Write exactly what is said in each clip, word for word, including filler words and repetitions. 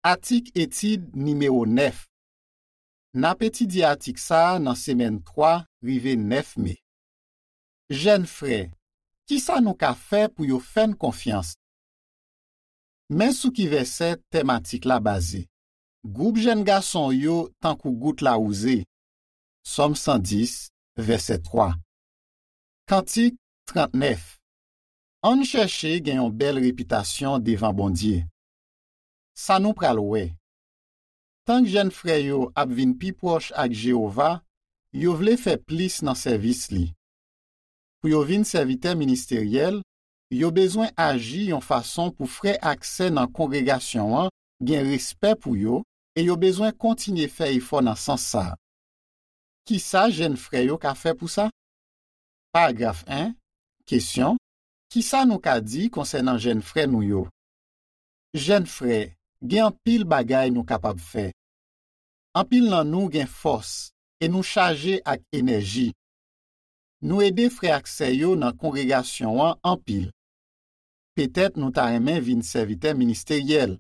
Atik etid nimewo nèf. N ap etidye atik sa a nan semèn twa rive nèf me. Jèn frè, kisa nou ka fè pou yo fè n konfyans? Men sou ki vèsè tèm atik la baze. Gwoup jèn gason w yo tankou gout lawouze. Sòm san dis, vèsè twa. Kantik trannèf. Ann chèche gen yon bèl repitasyon devan Bondye. Sa nou pral wè. Tank jèn frè yo ap vin pi pwòch ak Jewova, yo vle fè plis nan sèvis li. Pou yo vin sèvitè ministeryèl, yo bezwen aji yon fason pou frè ak sè nan kongregasyon an gen respè pou yo e yo bezwen kontinye fè efò nan sans sa a. Kisa jèn frè yo ka fè pou sa? Paragraf en, kesyon, kisa nou ka di konsènan jèn frè nou yo? Jèn frè, gen anpil bagay nou kapab fè. Anpil nan nou gen fòs e nou chaje ak enèji. Nou ede frè ak sè yo nan kongregasyon an anpil. Petèt nou ta renmen vin sèvitè ministeryèl.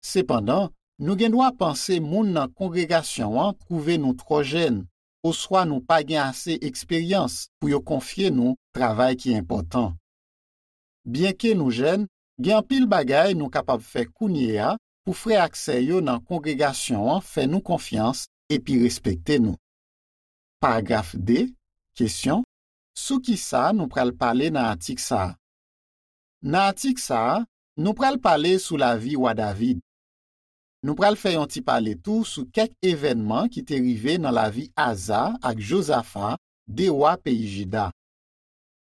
Sepandan, nou gen dwa panse moun nan kongregasyon an twouve nou twò jèn, oswa nou pa gen ase eksperyans pou yo konfye nou travay ki enpòtan. Byenke nou jèn, gen anpil bagay nou kapab fè kounye a pou frè ak sè yo nan kongregasyon an fè nou konfyans epi respekte nou. Paragraf de, kesyon, sou kisa nou pral pale nan atik sa a? Nan atik sa a, nou pral pale sou lavi wa David. Nou pral fè yon ti pale tou sou kèk evènman ki te rive nan lavi Aza ak Jozafa, de wa peyi Jida.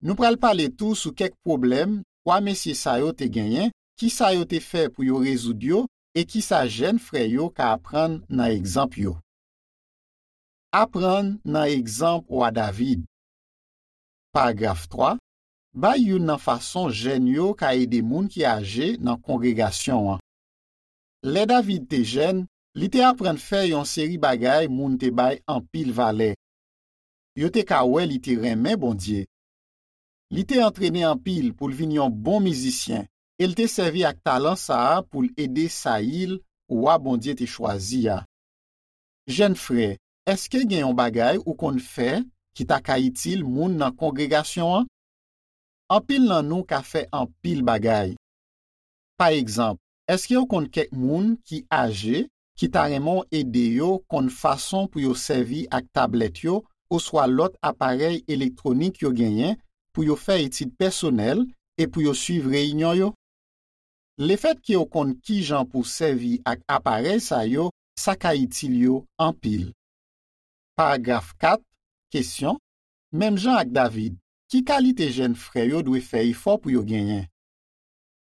Nou pral pale tou sou kèk pwoblèm twa mesye sa yo te genyen, kisa yo te fè pou yo rezoud yo, e kisa jèn frè yo ka aprann nan egzanp yo. Aprann nan egzanp wa David. Paragraf twa, bay youn nan fason jèn yo ka ede moun ki aje nan kongregasyon an. Lè David te jèn, li te aprann fè yon seri bagay moun te bay anpil valè. Yo te ka wè li te renmen Bondye. Li te antrene anpil pou l vin yon bon mizisyen e l te sèvi ak talan sa a pou l ede Sayil, wa Bondye te chwazi a. Jèn frè, èske gen yon bagay ou konn fè ki ta ka itil moun nan kongregasyon an? Anpil nan nou ka fè anpil bagay. Pa egzanp, èske w konn kèk moun ki aje ki ta renmen w ede yo konn fason pou yo sèvi ak tablèt yo oswa lòt aparèy elektwonik yo genyen pou yo fè etid pèsonèl e pou yo swiv reyinyon yo? Lefètke w konn kijan pou w sèvi ak aparèy sa yo, sa ka itil yo anpil. Paragraf kat, kesyon, menm jan ak David, ki kalite jèn frè yo dwe fè efò pou yo genyen?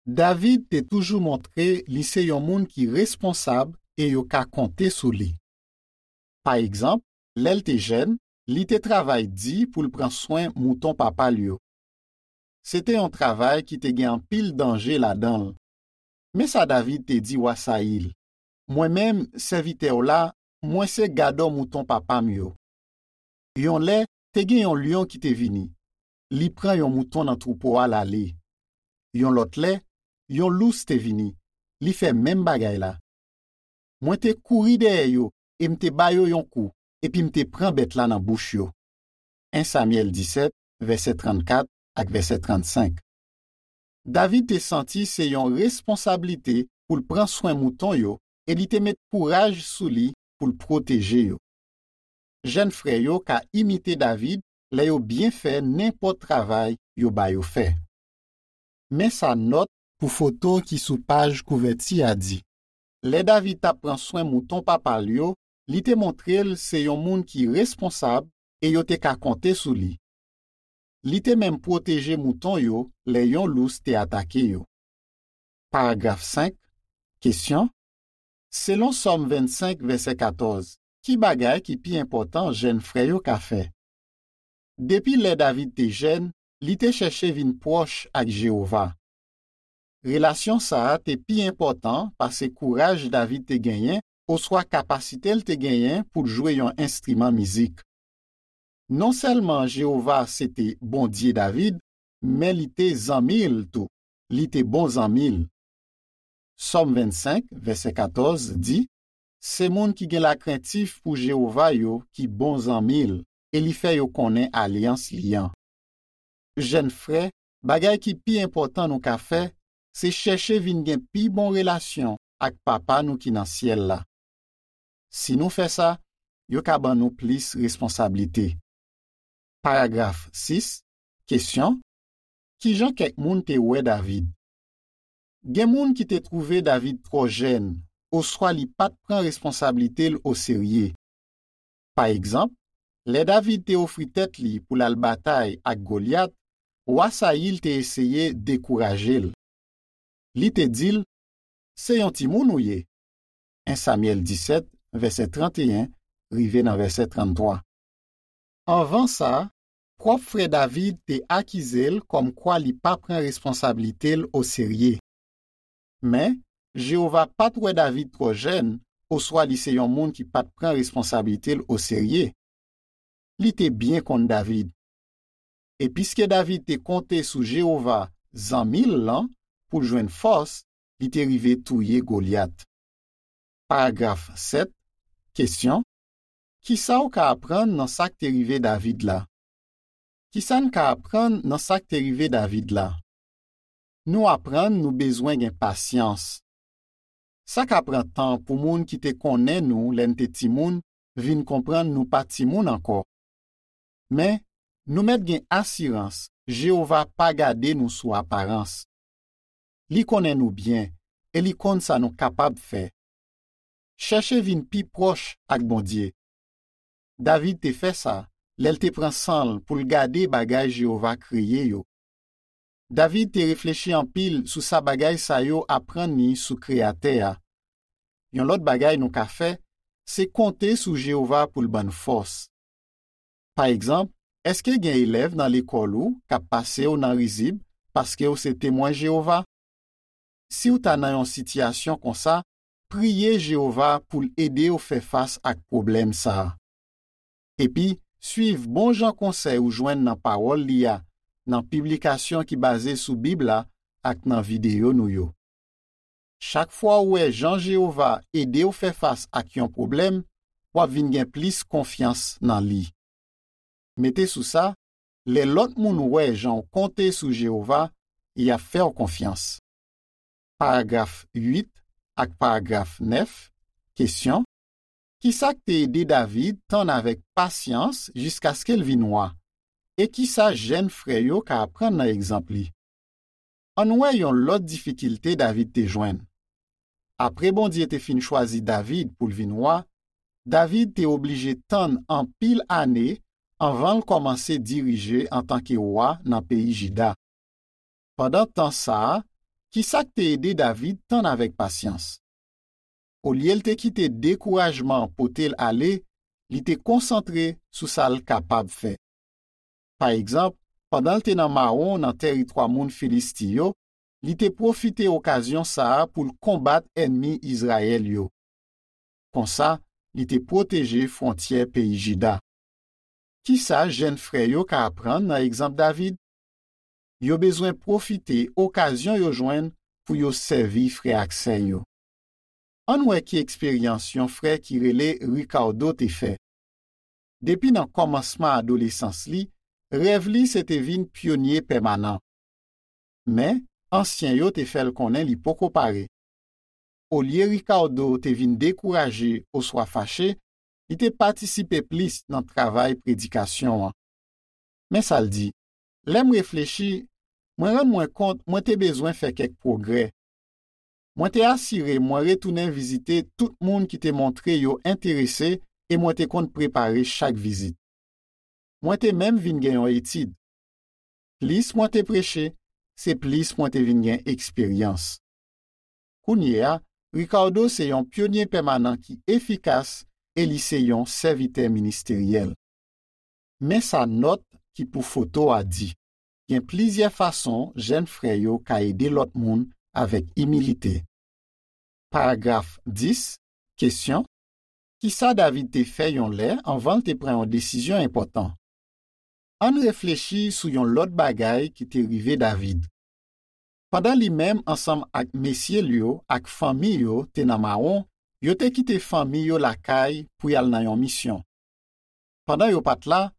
David te toujou montre li se yon moun ki responsab e yo ka konte sou li. Pa egzanp, lè l te jèn, li te travay di pou l pran swen mouton papa l yo. Se te yon travay ki te gen anpil danje ladan l. Men sa David te di wa Sayil, mwen menm, sèvitè w la, mwen se gadò mouton papa m yo. Yon lè, te gen yon lyon ki te vini. Li pran yon mouton nan twoupo a l ale. Yon lòt lè, yon lous te vini. Li fè menm bagay la. Mwen te kouri dèyè yo e m te ba yo yon kou, epi m te pran bèt la nan bouch yo. En Samyèl disèt, vèsè trannkat ak vèsè trannsenk. David te santi se yon responsablite pou l pran swen mouton yo e li te met kouraj sou li pou l pwoteje yo. Jèn frè yo ka imite David lè yo byen fè nenpòt travay yo ba yo fè. Men sa nòt pou foto ki sou paj kouvèti a di. Lè David t ap pran swen mouton papa l yo, li te montre l se yon moun ki responsab e yo te ka konte sou li. Li te menm pwoteje mouton yo lè yon lous te atake yo. Paragraf senk, kesyon, selon Sòm vennsenk, vèsè katòz, ki bagay ki pi enpòtan jèn frè yo ka fè? Depi lè David te jèn, li te chèche vin pwòch ak Jewova. Relasyon sa a te pi enpòtan pase kouraj David te genyen oswa kapasite l te genyen pou l jwe yon enstriman mizik. Non sèlman Jewova se te Bondye David, men li te zanmi l tou. Li te bon zanmi l. Sòm vennsenk, vèsè katòz di, se moun ki gen lakrentif pou Jewova yo ki bon zanmi l e li fè yo konnen alyans li an. Jèn frè, bagay ki pi enpòtan nou ka fè, se chèche vin gen pi bon relasyon ak Papa nou ki nan syèl la. Si nou fè sa, yo ka ban nou plis responsablite. Paragraf sis, kesyon, ki jan kèk moun te wè David? Gen moun ki te twouve David twò jèn, oswa li pa t pran responsablite l oserye. Pa egzanp, lè David te ofri tèt li pou l al batay ak Golyat, wa Sayil te eseye dekouraje l. Li te di l, se yon timoun ou ye. En Samyèl disèt, vèsè tranteyen rive nan vèsè tranntwa. Anvan sa, pwòp frè David te akize l kòmkwa li pa pran responsablite l oserye. Men, Jewova pa t wè David twò jèn, oswa li se yon moun ki pa t pran responsablite l oserye. Li te byen konn David. E piske David te konte sou Jewova, zanmi l lan, pou l jwenn fòs, li te rive touye Golyat. Paragraf sèt, kesyon, ki sa w ka aprann nan sa k te rive David la? Ki sa n ka aprann nan sa k te rive David la? Nou aprann nou bezwen gen pasyans. Sa ka pran tan pou moun ki te konnen nou lè n te timoun vin konprann nou pa timoun ankò. Men, nou mèt gen asirans Jewova pa gade nou sou aparans. Li konnen nou byen e li konn sa nou kapab fè. Chèche vin pi pwòch ak Bondye. David te fè sa lè l te pran san l pou l gade bagay Jewova kreye yo. David te reflechi anpil sou sa bagay sa yo aprann li sou Kreyatè a. Yon lòt bagay nou ka fè, se konte sou Jewova pou l ban n fòs. Pa egzanp, èske gen elèv nan lekòl ou k ap pase w nan rizib paske w se Temwen Jewova? Si w ta nan yon sitiyasyon konsa, priye Jewova pou l ede w fè fas ak pwoblèm sa a. Epi, suiv bon jan konsèy ou jwenn nan Pawòl li a, nan piblikasyon ki baze sou Bib la ak nan videyo nou yo. Chak fwa w wè jan Jewova ede w fè fas ak yon pwoblèm, w ap vin gen plis konfyans nan li. Mete sou sa, lè lòt moun wè jan w konte sou Jewova, y ap fè w konfyans. Paragraf uit ak paragraf nèf, kesyon, ki sa k te ede David tann avèk pasyans jiskaske l vin wa? E ki sa jèn frè yo ka aprann nan egzanp li? Ann wè yon lòt difikilte David te jwenn. Apre Bondye te fin chwazi David pou l vin wa, David te oblije tann anpil ane anvan l kòmanse dirije antanke wa nan peyi Jida. Pandan tan sa a, ki sa k te ede David tann avèk pasyans? Olye l te kite dekourajman pote l ale, li te konsantre sou sa l kapab fè. Pa egzanp, pandan l te nan mawon nan tèritwa moun Filisti yo, li te pwofite okazyon sa a pou l konbat ènmi Izrayèl yo. Konsa, li te pwoteje fwontyè peyi Jida. Ki sa jèn frè yo ka aprann nan egzanp David? Yo bezwen pwofite okazyon yo jwenn pou yo sèvi frè ak sè yo. Ann wè ki eksperyans yon frè ki rele Ricardo te fè. Depi nan kòmansman adolesans li, rèv li se te vin pyonye pèmanan. Men, ansyen yo te fè l konnen li poko pare. Olye Ricardo te vin dekouraje oswa fache, li te patisipe plis nan travay predikasyon an. Men sa l di, lè m reflechi, mwen rann mwen kont mwen te bezwen fè kèk pwogrè. Mwen te asire mwen retounen vizite tout moun ki te montre yo enterese e mwen te konn prepare chak vizit. Mwen te menm vin gen yon etid. Plis mwen te preche, se plis mwen te vin gen eksperyans. Kounye a, Ricardo se yon pyonye pèmanan ki efikas e li se yon sèvitè ministeryèl. Men sa nòt ki pou foto a di, gen plizyè fason jèn frè yo ka ede lòt moun avèk imilite. Paragraf dis, kesyon, ki sa David te fè yon lè anvan l te pran yon desizyon enpòtan? Ann reflechi sou yon lòt bagay ki te rive David. Pandan li menm ansanm ak mesye l yo ak fanmi yo te nan mawon, yo te kite fanmi yo lakay pou y al nan yon misyon. Pandan yo pa t la,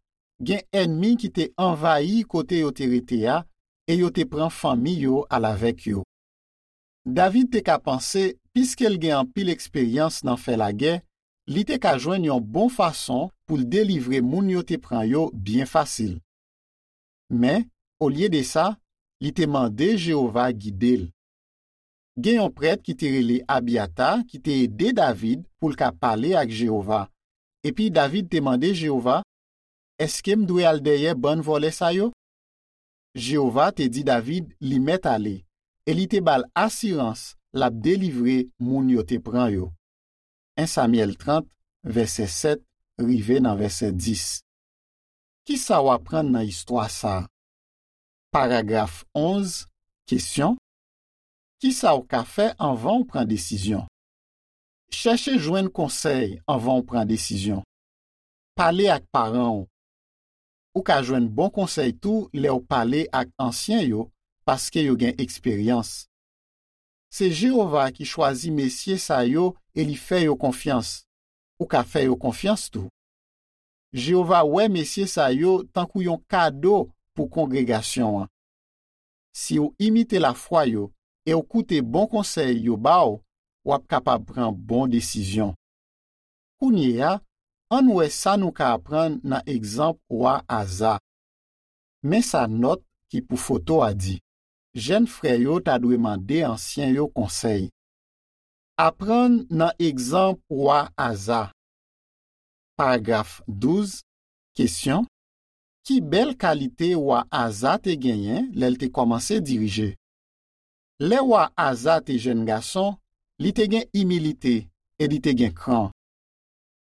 gen ènmi ki te anvayi kote yo te rete a e yo te pran fanmi yo al avèk yo. David te ka panse, piske l gen anpil eksperyans nan fè lagè, li te ka jwenn yon bon fason pou l delivre moun yo te pran yo byen fasil. Men, olye de sa, li te mande Jewova gide l. Gen yon prèt ki te rele Abyata ki te ede David pou l ka pale ak Jewova. Epi David te mande Jewova, èske m dwe al dèyè bann vòlè sa yo? Jewova te di David li mèt ale, e li te ba l asirans l ap delivre moun yo te pran yo. En Samyèl trant, vèsè sèt rive nan vèsè dis. Ki sa w aprann nan istwa sa a? Paragraf onz, kesyon. Ki sa w ka fè anvan w pran desizyon? Chèche jwenn konsèy anvan w pran desizyon. Pale ak paran w. Ou ka jwenn bon konsèy tou lè w pale ak ansyen yo, paske yo gen eksperyans. Se Jewova ki chwazi mesye sa yo e li fè yo konfyans. Ou ka fè yo konfyans tou. Jewova wè mesye sa yo tankou yon kado pou kongregasyon an. Si w imite lafwa yo e w koute bon konsèy yo ba w, w ap kapab pran bon desizyon. Kounye a, ann wè sa nou ka aprann nan egzanp wa Aza. Men sa nòt ki pou foto a di, jèn frè yo ta dwe mande ansyen yo konsèy. Aprann nan egzanp wa Aza. Paragraf douz, kesyon. Ki bèl kalite wa Aza te genyen lè l te kòmanse dirije? Lè wa Aza te jèn gason, li te gen imilite e li te gen kran.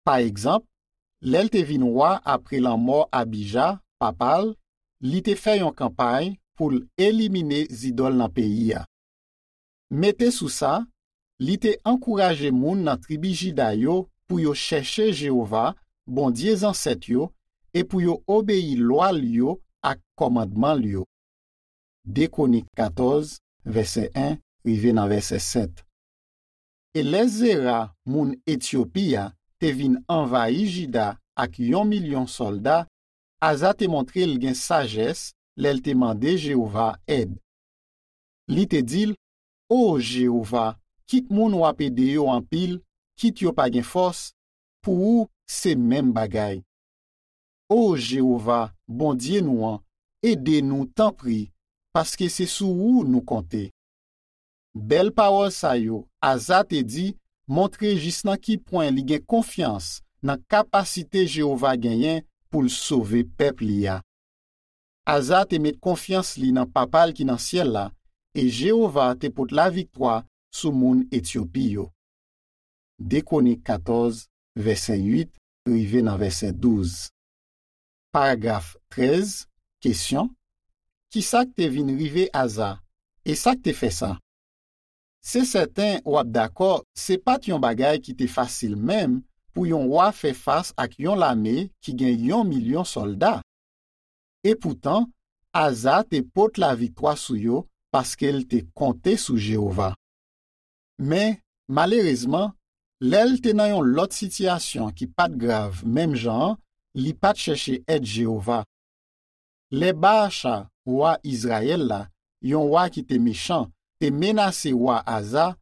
Pa egzanp, lè l te vin wa apre lanmò Abija, papa l, li te fè yon kanpay pou l elimine zidòl nan peyi a. Mete sou sa, li te ankouraje moun nan tribi Jida yo pou yo chèche Jewova, Bondye zansèt yo, e pou yo obeyi lwa l yo ak kòmandman l yo. De Kwonik katòz, vèsè en rive nan vèsè sèt. E lè Zera, moun Etyopi a, te vin anvayi Jida ak yon milyon sòlda, Aza te montre l gen sajès lè l te mande Jewova èd. Li te di l, O Jewova, kit moun w ap ede yo anpil, kit yo pa gen fòs, pou ou se menm bagay. O Jewova, Bondye nou an, ede nou, tanpri, paske se sou ou nou konte. Bèl pawòl sa yo Aza te di montre jis nan ki pwen li gen konfyans nan kapasite Jewova genyen pou l sove pèp li a. Aza te met konfyans li nan Papa l ki nan syèl la, e Jewova te pot laviktwa sou moun Etyopi yo. De Kwonik katòz, vèsè uit rive nan vèsè douz. Paragraf trèz, kesyon, ki sa k te vin rive Aza, e sa k te fè sa? Se sèten w ap dakò, se pa t yon bagay ki te fasil menm pou yon wa fè fas ak yon lame ki gen yon milyon sòlda. Epoutan, Aza te pot laviktwa sou yo paske l te konte sou Jewova. Men, malerezman, lè l te nan yon lòt sitiyasyon ki pa t grav menm jan an, li pa t chèche èd Jewova. Lè Baacha, wa Izrayèl la, yon wa ki te mechan, te menase wa Aza,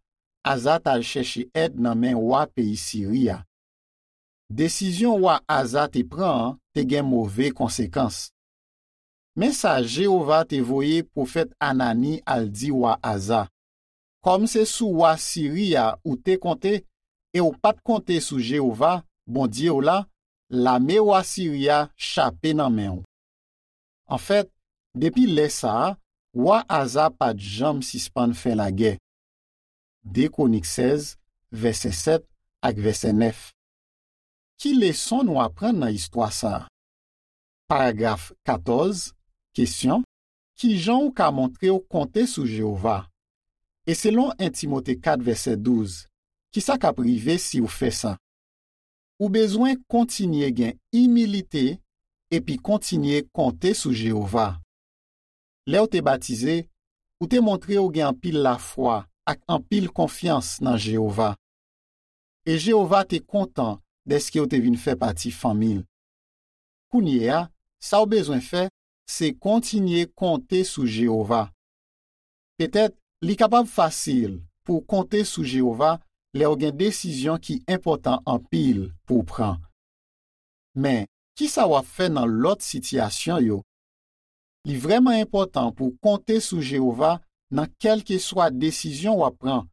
Aza t al chèche èd nan men wa peyi Siri a. Desizyon wa Aza te pran an te gen move konsekans. Men sa Jewova te voye pwofèt Anani al di wa Aza, Kòm se sou wa Siri a ou te konte e w pa t konte sou Jewova, Bondye w la, lame wa Siri a chape nan men w. Anfèt, depi lè sa a, wa Aza pa t janm sispann fè lagè. De Kwonik sèz, vèsè sèt ak vèsè nèf. Ki leson nou aprann nan istwa sa a? Paragraf katòz, kesyon, ki jan w ka montre w konte sou Jewova? E selon en Timote kat vèsè douz, ki sa k ap rive si w fè sa? Ou bezwen kontinye gen imilite epi kontinye konte sou Jewova. Lè w te batize, ou te montre w gen anpil lafwa ak anpil konfyans nan Jewova. E Jewova te kontan dèske w te vin fè pati fanmi l. Kounye a, sa w bezwen fè, se kontinye konte sou Jewova. Petèt, li kapab fasil pou w konte sou Jewova lè w gen desizyon ki enpòtan anpil pou w pran. Men, ki sa w ap fè nan lòt sitiyasyon yo? Li vrèman enpòtan pou w konte sou Jewova nan kèlkeswa desizyon w ap pran,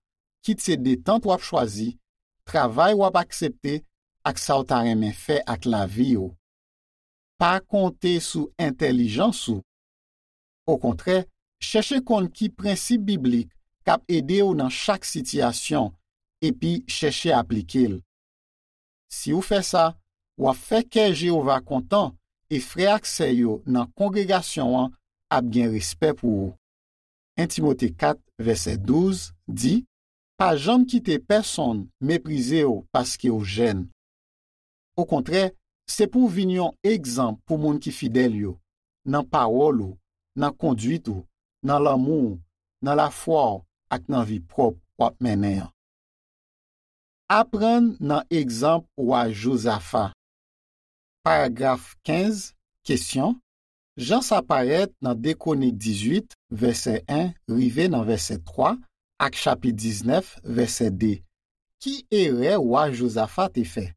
kit se detant w ap chwazi, travay w ap aksepte, ak sa w ta renmen fè ak lavi w. Pa konte sou entèlijans ou. Okontrè, chèche konn ki prensip biblik k ap ede w nan chak sitiyasyon, epi chèche aplike l. Si w fè sa, w ap fè kè Jewova kontan e frè ak sè yo nan kongregasyon an ap gen respè pou ou. En Timote kat, vèsè douz, di, Pa janm kite pèsonn meprize w paske w jèn. Okontrè, se pou w vin yon egzanp pou moun ki fidèl yo, nan pawòl ou, nan konduit ou, nan lanmou w, nan lafwa w ak nan vi pwòp w ap mennen an. Aprann nan egzanp wa Jozafa. Paragraf kenz, kesyon, Jan sa parèt nan de Kwonik dizuit, vèsè en rive nan vèsè twa, ak chapit diznèf, vèsè de, ki erè wa Jozafa te fè?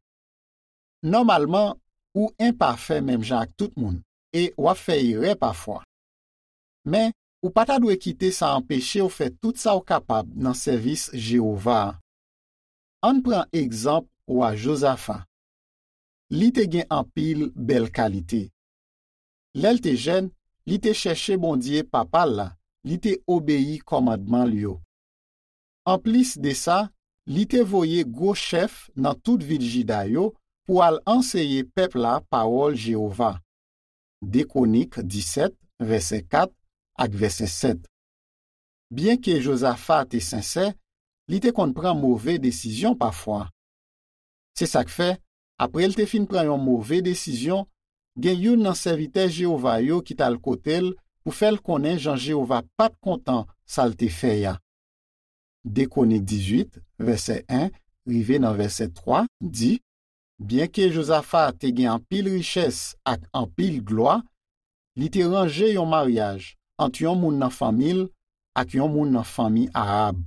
Nòmalman, ou enpafè menm jan ak tout moun, e w ap fè erè pafwa. Men, ou pa ta dwe kite sa anpeche w fè tout sa w kapab nan sèvis Jewova a. Ann pran egzanp wa Jozafa. Li te gen anpil bèl kalite. Lè l te jèn, li te chèche Bondye papa l la, li te obeyi kòmandman l yo. Anplis de sa, li te voye gwo chèf nan tout vil Jida yo pou al anseye pèp la pawòl Jewova. De Kwonik disèt, vèsè kat ak vèsè sèt. Byenke Jozafa te sensè, li te konn pran move desizyon pafwa. Se sa k fè, apre l te fin pran yon move desizyon, gen youn nan sèvitè Jewova yo ki t al kote l pou fè l konnen jan Jewova pa t kontan sa l te fè a. De Kwonik dizuit, vèsè en rive nan vèsè twa di, Byenke Jozafa te gen anpil richès ak anpil glwa, li te ranje yon maryaj ant yon moun nan fanmi l ak yon moun nan fanmi Ahab.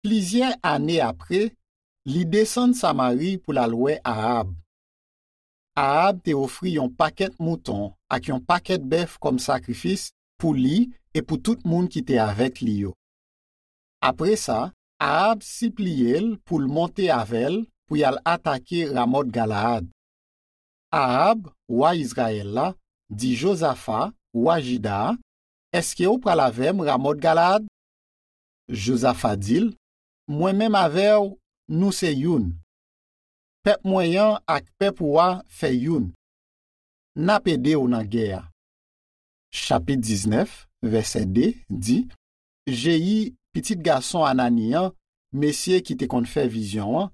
Plizyè ane apre, li desann Samari pou l al wè Ahab. Ahab te ofri yon pakèt mouton ak yon pakèt bèf kòm sakrifis pou li e pou tout moun ki te avèk li yo. Apre sa, Ahab sipliye l pou l monte avè l pou y al atake Ramòt Galaad. Ahab, wa Izrayèl la, di Jozafa, wa Jida a, Èske w pral avè m Ramòt Galaad? Jozafa di l, Mwen menm avè w, nou se youn. Pèp mwen an ak pèp ou a fè youn. N ap ede w nan gè a. Chapit diznèf, vèsè de di, Jeyi, pitit gason Anani an, mesye ki te konn fè vizyon an,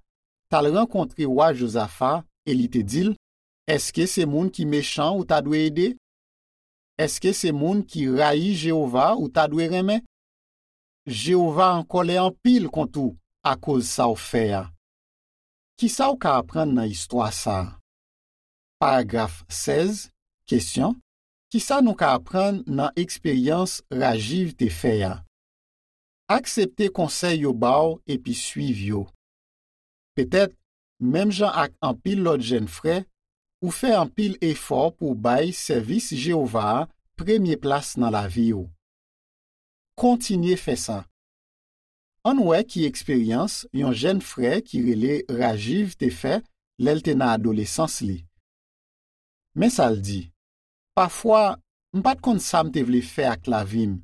t al rankontre wa Jozafa e li te di l, Èske se moun ki mechan ou ta dwe ede? Èske se moun ki rayi Jewova ou ta dwe renmen? Jewova an kòlè anpil kont ou akoz sa w fè a. Ki sa w ka aprann nan istwa sa a? Paragraf sèz, kesyon, Ki sa nou ka aprann nan eksperyans Rajiv te fè a? Aksepte konsèy yo ba w epi suiv yo. Petèt, menm jan ak anpil lòt jèn frè, ou fè anpil efò pou w bay sèvis Jewova a premye plas nan lavi w. Kontinye fè sa. Ann wè ki eksperyans yon jèn frè ki rele Rajiv te fè lè l te nan adolesans li. Men sa l di, Pafwa, m pa t konn sa m te vle fè ak lavi m.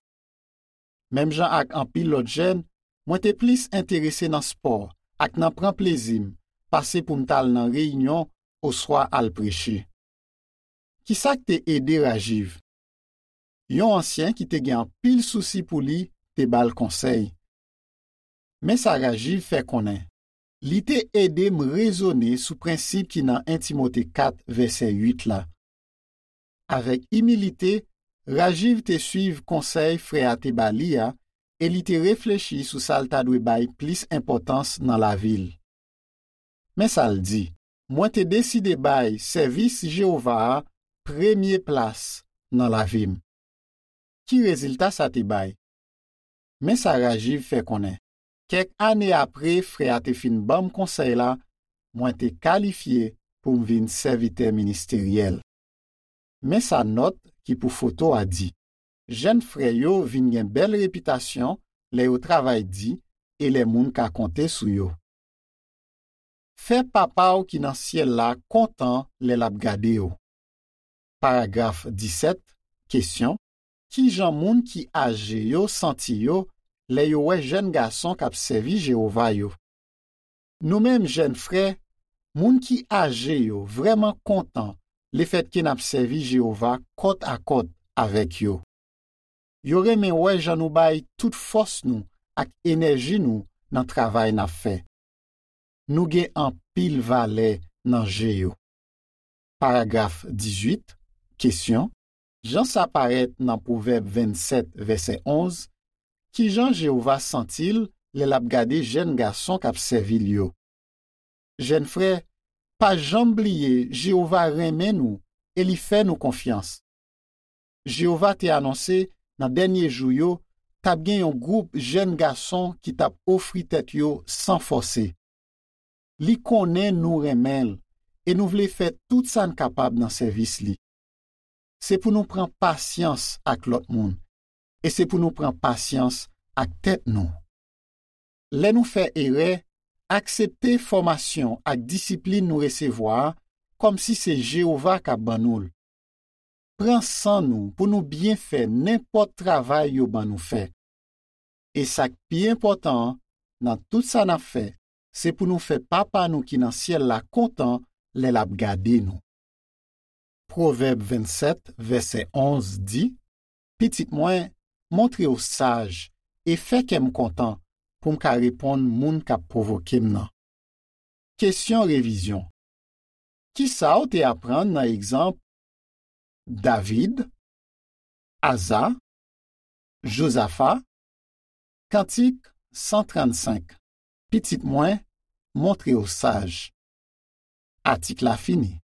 Menm jan ak anpil lòt jèn, mwen te plis enterese nan spò ak nan pran plezi m pase pou m t al nan reyinyon oswa al preche. Ki sa k te ede Rajiv? Yon ansyen ki te gen anpil sousi pou li te ba l konsèy. Men sa Rajiv fè konnen, Li te ede m rezone sou prensip ki nan en Timote kat, vèsè uit la. Avèk imilite, Rajiv te suiv konsèy frè a te ba li a e li te reflechi sou sa l ta dwe bay plis enpòtans nan lavi l. Men sa l di: "Mwen te deside bay sèvis Jewova a premye plas nan lavi m." Ki rezilta sa te bay? Men sa Rajiv fè konnen: "Kèk ane apre frè a te fin ban m konsèy la, mwen te kalifye pou m vin sèvitè ministeryèl." Men sa nòt ki pou foto a di: "Jèn frè yo vin gen bèl repitasyon lè yo travay di e lè moun ka konte sou yo." Fè Papa w ki nan syèl la kontan lè l ap gade w. Paragraf disèt, kesyon: ki jan moun ki aje yo santi yo lè yo wè jèn gason k ap sèvi Jewova yo? Nou menm jèn frè, moun ki aje yo vrèman kontan lefètke n ap sèvi Jewova kòt a kòt avèk yo. Yo renmen wè jan nou bay tout fòs nou ak enèji nou nan travay n ap fè. Nou gen anpil valè nan je yo. Paragraf dizuit, kesyon: jan sa parèt nan Pwovèb vennsèt, vèsè onz, ki jan Jewova santi l lè l ap gade jèn gason k ap sèvi l yo? Jèn frè, pa janm bliye Jewova renmen nou e li fè nou konfyans. Jewova te anonse nan dènye jou yo t ap gen yon gwoup jèn gason ki t ap ofri tèt yo san fòse. Li konnen nou renmen l e nou vle fè tout sa n kapab nan sèvis li. Se pou nou pran pasyans ak lòt moun e se pou nou pran pasyans ak tèt nou. Lè nou fè erè, aksepte fòmasyon ak disiplin nou resevwa a kòmsi se Jewova k ap ban nou l. Pran san nou pou nou byen fè nenpòt travay yo ban nou fè. E sa k pi enpòtan an, nan tout sa n ap fè, se pou nou fè Papa nou ki nan syèl la kontan lè l ap gade nou. Pwovèb vennsèt, vèsè onz di: "Pitit mwen, montre w saj e fè kè m kontan pou m ka reponn moun k ap pwovoke m nan." Kesyon revizyon: ki sa w te aprann nan egzanp David, Aza, Jozafa? Kantik san trannsenk: "Pitit mwen, montre w saj." Atik la fini.